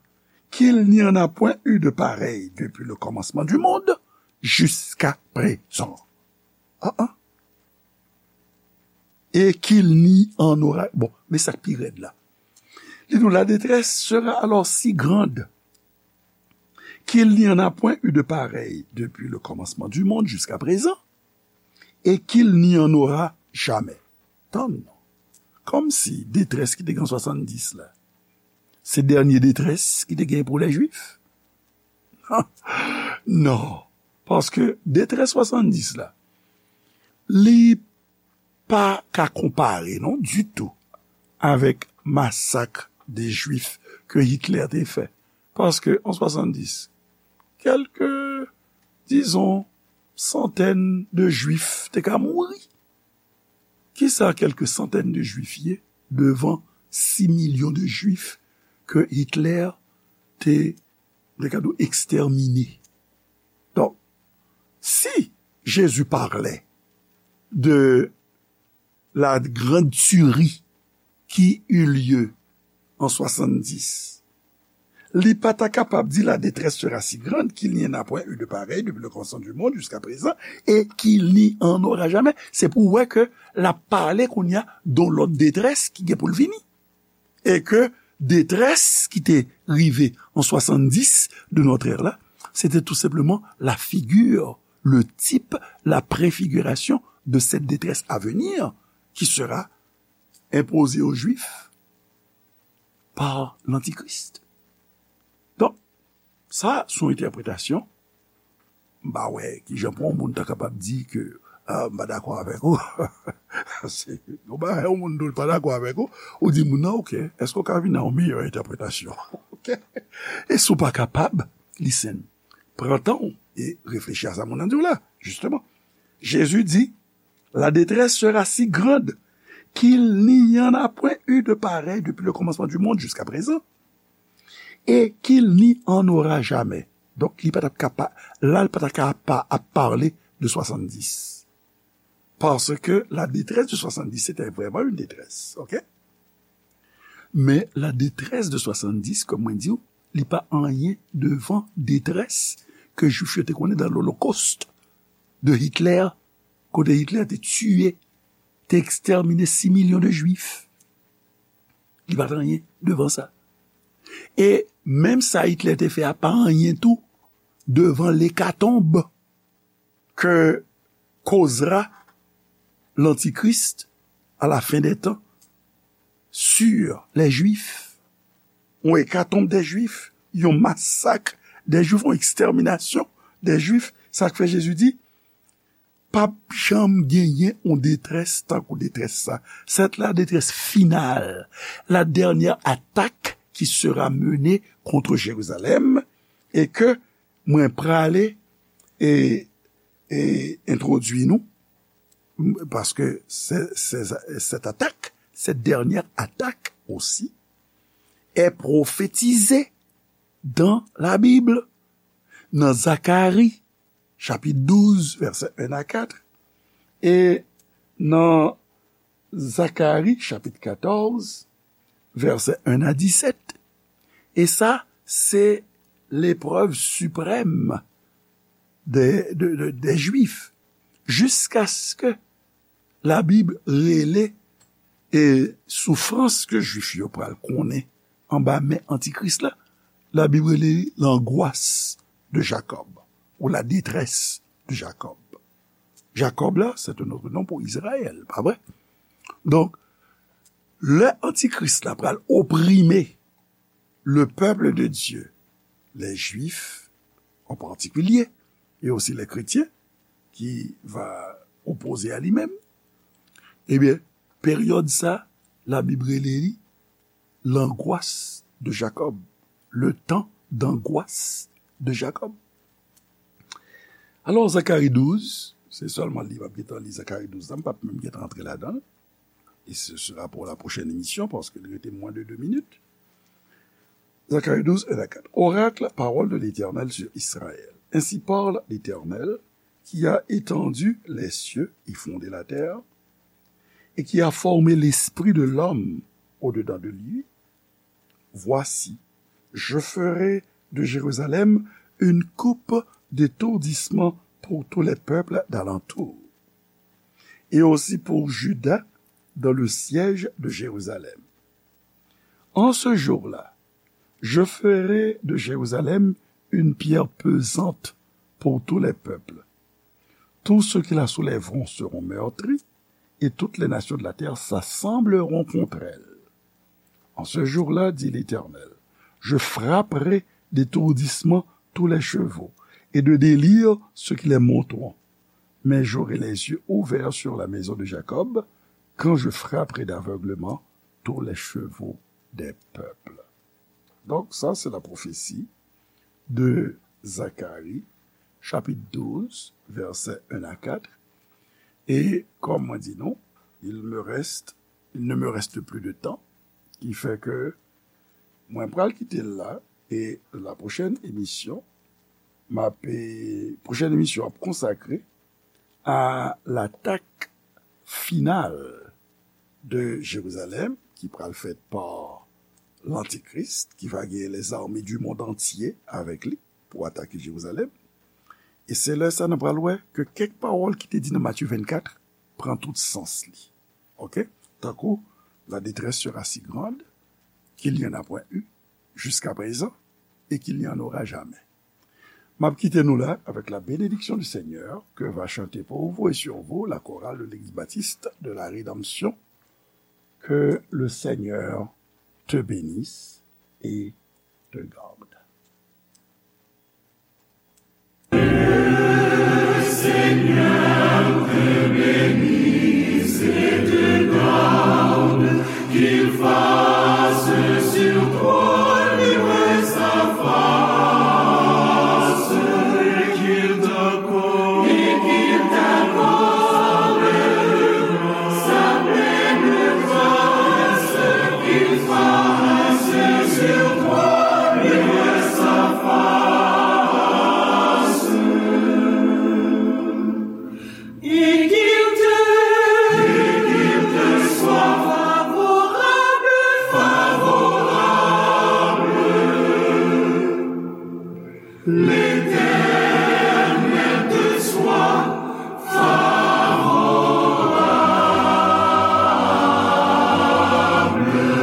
qu'il n'y en a point eu de pareil depuis le commencement du monde jusqu'à présent." Ah, ah. Et qu'il n'y en aura, bon, men sa k pi rèd la. Li di nou, la détresse sera alors si grande qu'il n'y en a point eu de pareil depuis le commencement du monde jusqu'à présent, et qu'il n'y en aura jamais. Tann non. Kòmsi detrès ki te gen swasanndis la, se dènye detrès ki te gen pou lè Jwif? Non. Paske detrès swasanndis la, li pa ka konpare, non, ditou, avèk masak de Jwif ke Hitler te fè. Paske an swasanndis, kèlke, dizon, santèn de Jwif te ka mouri. Kisa kèlke santèn de Jwif ye devan sis milyon de Jwif ke Hitler te, te ka di w, ekstèmine? Donk, si Jésus parlait de la grande tuerie qui eut lieu en soixante-dix, li pa ta kapab di la détresse sera si grande qu'il n'y en a point eu de pareil depuis le commencement du monde jusqu'à présent et qu'il n'y en aura jamais. Se pou w wè ke l ap pale kounye a de yon lòt detrès ki gen pou l vini. E ke detrès ki te rive an swasanndis de notre ère la, se te tou senpleman la figure, le type, la préfiguration de cette détresse à venir qui sera imposée aux Juifs par l'Antichrist. Donk, sa se yon entèpretasyon. M pa wè kijan pou yon moun ta kapab di ke, ah, m pa dakò avèk ou. Se yon bagay, yon moun di w l pa dakò avèk ou, ou di moun nan, "Ok, èske w ka vin ak yon meyè entèpretasyon?" Ok? E si w pa kapab, listen, pran tan w e reflechi a sa moun nan di w la, jisteman. Jezi di, la détresse sera si grande qu'il n'y en a point eu de pareil depuis le commencement du monde jusqu'à présent, et qu'il n'y en aura jamais. Donk, li pa t ap ka pa, la, l pa t ap ka pa ap pale de swasanndis. Paske la détresse de soixante-dix, c'était vraiment une détresse, ok? Men la détresse de soixante-dix, kòm mwen di w, li pa anyen devan detrès ke Jwif yo te konnen dan Lolokòst de Hitler, kote Hitler te tiye, te ekstèmine sis milyon de Jwif. Li pa t anyen devan sa. E menm sa Hitler te fè a pa anyen tou devan lekatonb que causera l'Antichrist à la fin des temps sur les Juifs. Yon ekatonb dè Jwif, yon masak dè Jwif, yon ekstèminasyon dè Jwif. Sa k fè Jezi di, p ap janm genyen yon detrès tankou detrès sa. C'est la détresse finale, la dernière attaque qui sera menée contre Jérusalem, et que mwen prale e, e entwodui nou, m-, paske se, se, cette attaque, cette dernière attaque aussi, est prophétisée dans la Bible, nan Zakari, chapit douz, vèsè en a kat, e nan Zakari, chapit katòz, vèsè en a disèt. E sa, se leprèv siprèm dè, dè, dè, dè Jwif, jiskaske Labib rele, e, soufrans ke Jwif yo pral konnen anba men Antikris la, Labib rele li l'angoisse de Jacob, ou la détresse de Jacob. Jacob la, c'est un autre nom pour Israël, pa vre? Donk, lè antikris la pral oprime le peuple de Dieu, les Juifs en particulier, et aussi les chrétiens qui va opposer à lui-même, ebyen, peryòd sa, Labib rele li l'angoisse de Jacob, le temps d'angoisse de Jacob. Alò, Zakari douz, se sèlman li m ap gentan li Zakari douz la, m p ap menm gentan antre ladan l. Et ce sera pour la prochaine émission, parce qu'il reste moins de deux minutes. Zacharie douze, un à quatre. Oracle, parole de l'Éternel sur Israël. Ainsi parle l'Éternel, qui a étendu les cieux et fondé la terre, et qui a formé l'esprit de l'homme au-dedans de lui. Voici, je ferai de Jérusalem une coupe d'étourdissement pour tous les peuples d'alentour, et aussi pour Juda dans le siège de Jérusalem. En ce jour-là, je ferai de Jérusalem une pierre pesante pour tous les peuples. Tous ceux qui la soulèveront seront meurtris, et toutes les nations de la terre s'assembleront contre elle. En ce jour-là, dit l'Éternel, je frapperai d'étourdissement tous les chevaux, et de délire ceux qui les monteront. Mais j'aurai les yeux ouverts sur la maison de Jacob, quand je frapperai d'aveuglement tous les chevaux des peuples. Donc, ça, c'est la prophétie de Zacharie, chapitre douze, versets un à quatre. Et comme mwen di nou, il me reste, il ne me reste plus de temps, qui fait que mwen pral kite l la, et la prochaine émission, m ap, eh, prochaine émission ap consacrée à l'attaque finale de Jérusalem, ki pral fèt pa l'Antichrist, qui va gagner les armées du monde entier avec lui pour attaquer Jérusalem. E se lè sa nou pral wè ke kèk pawòl ki te di nan Matye vennkat pran tout sans li. Oke? Tankou, la détresse sera si grande qu'il n'y en a point eu jusqu'à présent et qu'il n'y en aura jamais. M ap kite nou la avec la bénédiction du Seigneur que va chanter pour vous et sur vous la chorale de l'Église baptiste de la Rédemption. Que le Seigneur te bénisse et te garde. Seigneur te bénisse et te garde, qu'il fasse sur toi luire sa face, et qu'il t'accorde, et qu'il t'accorde sa pleine grâce, qu'il fasse sur toi luire sa face. Et qu'il te, et qu'il te soit favorable, favorable. L'Éternel te soit favorable. Amen.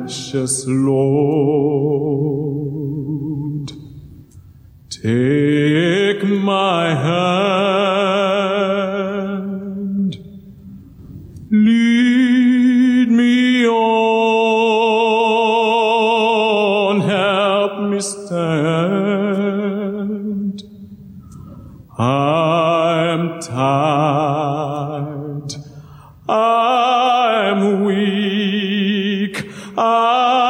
Precious Lord, take my hand, lead me on, help me stand. I'm tired, I'm weak, I